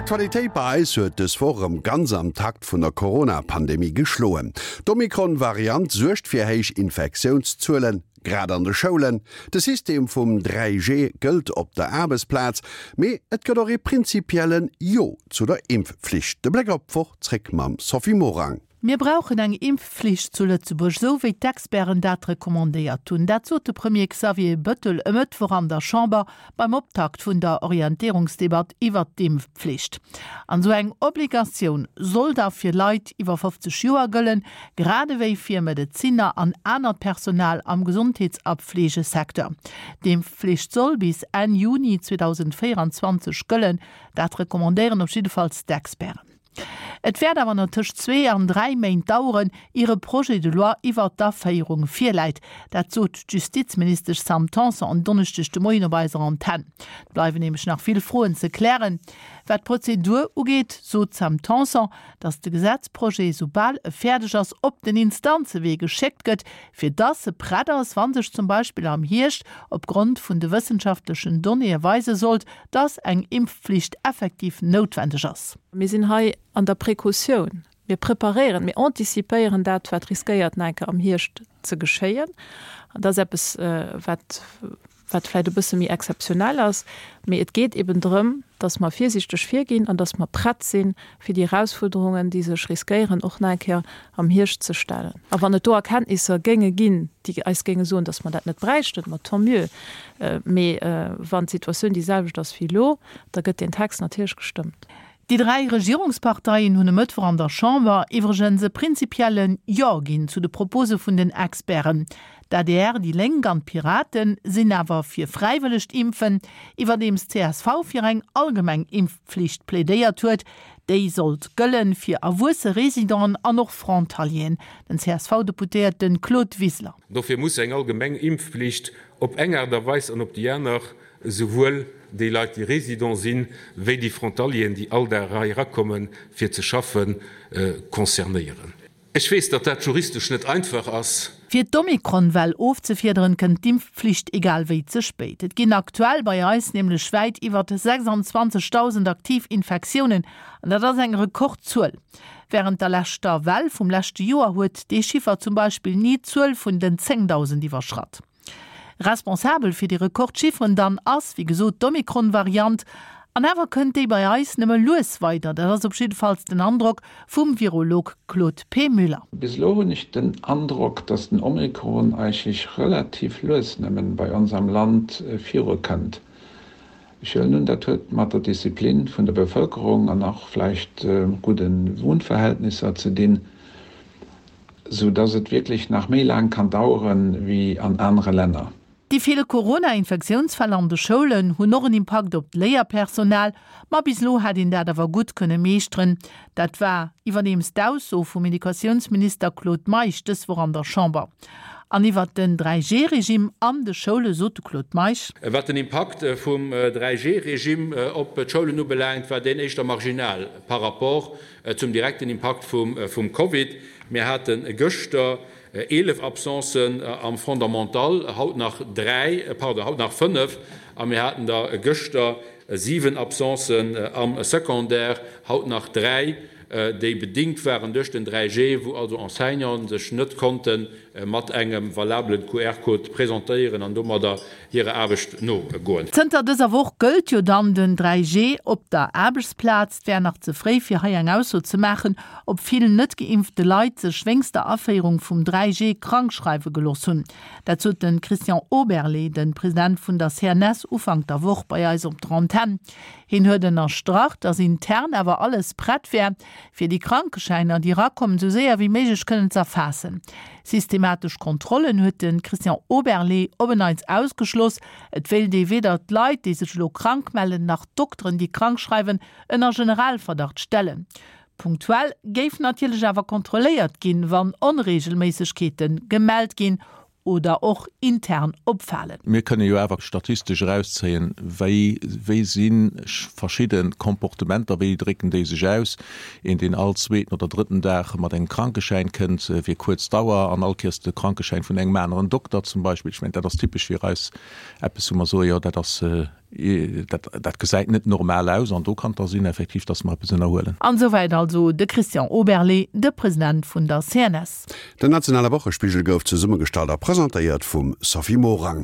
D'Aktualitéit bei eis huet dës Woch erëm ganz am Takt vun der Corona-Pandemie geschloen. D'Omikron-Variant suergt fir héich Infektiounszuelen, grad an de Schoulen. De System vum 3G gëllt op der Aarbechtsplaz, mee et gëtt och ee prinzipiellen Jo zu der Impfflicht. De Bléck op d'Woch zréck mam Sophie Morang. Mir brauchen eng Impfflicht zu Lëtzebuerg, esou wéi d'Experten dat recommandéiert hunn. Dat sot de Premier Xavier Bëttel e Mëttwoch an der Chamber beim Optakt vun der Orientéierungsdebatt iwwert d'Impfpflicht. An esou eng Obligatioun soll da fir Leit iwwer 50 Joer gëllen, grad ewéi fir Medezinner an anert Personal am Gesondheets a Pflegesecteur. D'Impfflicht soll bis Enn Juni 2024 gëllen, dat recommandéieren op jiddefalls d'Experten. Et wäert awer nach tëscht zwee an dräi Méint daueren, ier e Projet de loi iwwert d'Aféierung virläit. Dat sot d'Justizministesch Sam Tanson en Donneschdeg de Moien op eiser Antenn. Et bleiwen nämlech nach vill Froen ze klären. Wat d'Prozedur ugeet, sot d'Sam Tanson, datt de Gesetzprojet, soubal e fäerdeg ass, op den Instanzewee geschéckt gëtt, fir datt e prett ass, wa sech zum Beispill am Hierscht opgrond vun de wëssenschaftlechen Donnéeë weise sollt, dass eng Impfpflicht effektiv noutwendeg ass. Mir sinn hei an der Precautioun. Mir preparéieren, mir anticipéieren dat, wat riskéiert nach eng Kéier am Hierscht ze geschéien. An dat ass eppes, wat, wat vläicht e bësse méi exzeptionell ass. Mee et geet eben drëm, dass mer virsiichteg virginn an dass mer prett sinn, fir déi Erausfuerderungen, déi sech riskéieren, och nach eng Kéier am Hierscht ze stellen. A wann et do Erkenntnisser géinge ginn, déi eis géinge soen, dass mer dat net bräichten, ma tant mieux. Mee wann d'Situatioun déi selwecht ass wéi elo, da gëtt deen Text natierlech gestëmmt. Déi 3 Regierungsparteien hunn e Mëttwoch an der Chamber iwwregens e prinzipielle Jo ginn zu de Propose vun den Experten. D'adr, déi Lénk an d'Piraten sinn awer fir fräiwëllegt Impfen, iwwerdeems d'CSV fir eng allgemeng Impfpflicht plädéiert huet. Déi sollt gëllen fir erwuesse Residenten an och Frontalieren. Den CSV-Deputéierte Claude Wiseler. Dofir muss eng allgemeng Impfpflicht op eng Aart a Weis an op déi aner esouwuel déi Leit, déi Résident sinn, wéi déi Frontalieren, déi all Dag hei erakommen, fir ze schaffen, concernéieren. Ech weess, datt dat juristesch net einfach ass. Fir d'Omikron-Well ofzefiederen, kënnt d'Impfpflicht egal wéi ze spéit. Et ginn aktuell bei eis nämlech wäit iwwert 26.000 aktiv Infektiounen, an dat ass eng Rekordzuel. Wärend der leschter Well vum leschte Joer huet dee Chiffer zum Beispill ni d'Zuel vun den 10.000 iwwerschratt. Responsabel fir déi Rekordchifferen dann ass, wéi gesot, d'Omikron-Variant. An awer kënnt déi bei eis nëmme lues weider. Dat ass op jiddefalls den Androck vum Virolog Claude P. Müller. Bis elo hunn ech den Androck, datt den Omikron eigentlech relativ lues nëmmen bei ons am Land virukënnt. Ech huelen un, dat huet mat der Disziplin vun der Bevëlkerung an och vläicht gudde Wunnverhältnisser ze dinn. Sou dass et wierklech nach méi laang kann daueren wéi an anere Länner. Déi vill Corona-Infektiounsfäll an de Schoulen hunn och en Impakt op d'Léierpersonal, ma bis elo hätt een dat awer gutt kënne meeschteren. Dat war iwwerdeems d'Ausso vum Educatiounsminister Claude Meisch dës Woch an der Chamber. An iwwert den 3G-Regime an de Schoule sot de Claude Meisch. Wat den Impakt vum 3G-Regime op d'Schoulen ubelaangt, war deen éischter marginal par rapport Zum direkten Impakt vum Covid, Mir hate gëschter 11 Absencen am Fondamental, haut nach dräi, pardon, haut nach fënnef, a mir haten der gëschter 7 Absencen am Secondaire, haut nach dräi, déi bedingt waren duerch den 3G, wou also Enseignanten sech net konnte mat engem valabelen QR-Code presentéieren an domadder hirer Aarbecht nogoen. Zënter dëser Woch gëllt jo dann den 3G op der Aarbechtsplaz. Et wär nach ze fréi fir hei eng Ausso ze maachen, ob vill net geimpfte Leit sech wéinst der Aféierung vum 3G krank schreiwe gelooss hunn. Dat sot de Christian Oberlé, de President vun der CNS, Ufank der Woch bei eis op der Antenn. Hien huet ënnerstrach, datt intern awer alles prett wär, fir déi Krankeschäiner, déi erakommen, esou séier wéi méiglech kënnen z'erfaassen. Systematesch Kontrollen huet de Christian Oberlé op en Neits ausgeschloss. Et wéilt ee weder d'Leit, déi sech elo krank mellen, nach d'Dokteren, déi krank schreiwen, ënner Generalverdacht stellen. Punktuell géif natierlech awer kontrolléiert ginn, wann Onreegelméissegkeete gemellt ginn oder och intern opfalen. Mir kënne jo awer statistesch erauszéien, wéi wéi si verschidde Comportementer, wéi drécken déi sech aus. Een, deen all zweeten oder drëtten Dag mat engem Krankeschäin kënnt fir kuerz Dauer an all Kéiers de Krankeschäin vun engem aneren Dokter zum Beispill, ech mengen, dat ass typesch fir eis eppes, wou mer soen, jo, dat ass. Dat, dat gesäit net normal aus an do kann et da sinn effektiv, dass mer eppes ënnerhuelen. An esouwäit also de Christian Oberlé, de President vun der CNS. Den nationale Wochespigel gouf zesummegestallt a presentéiert vum Sophie Morang.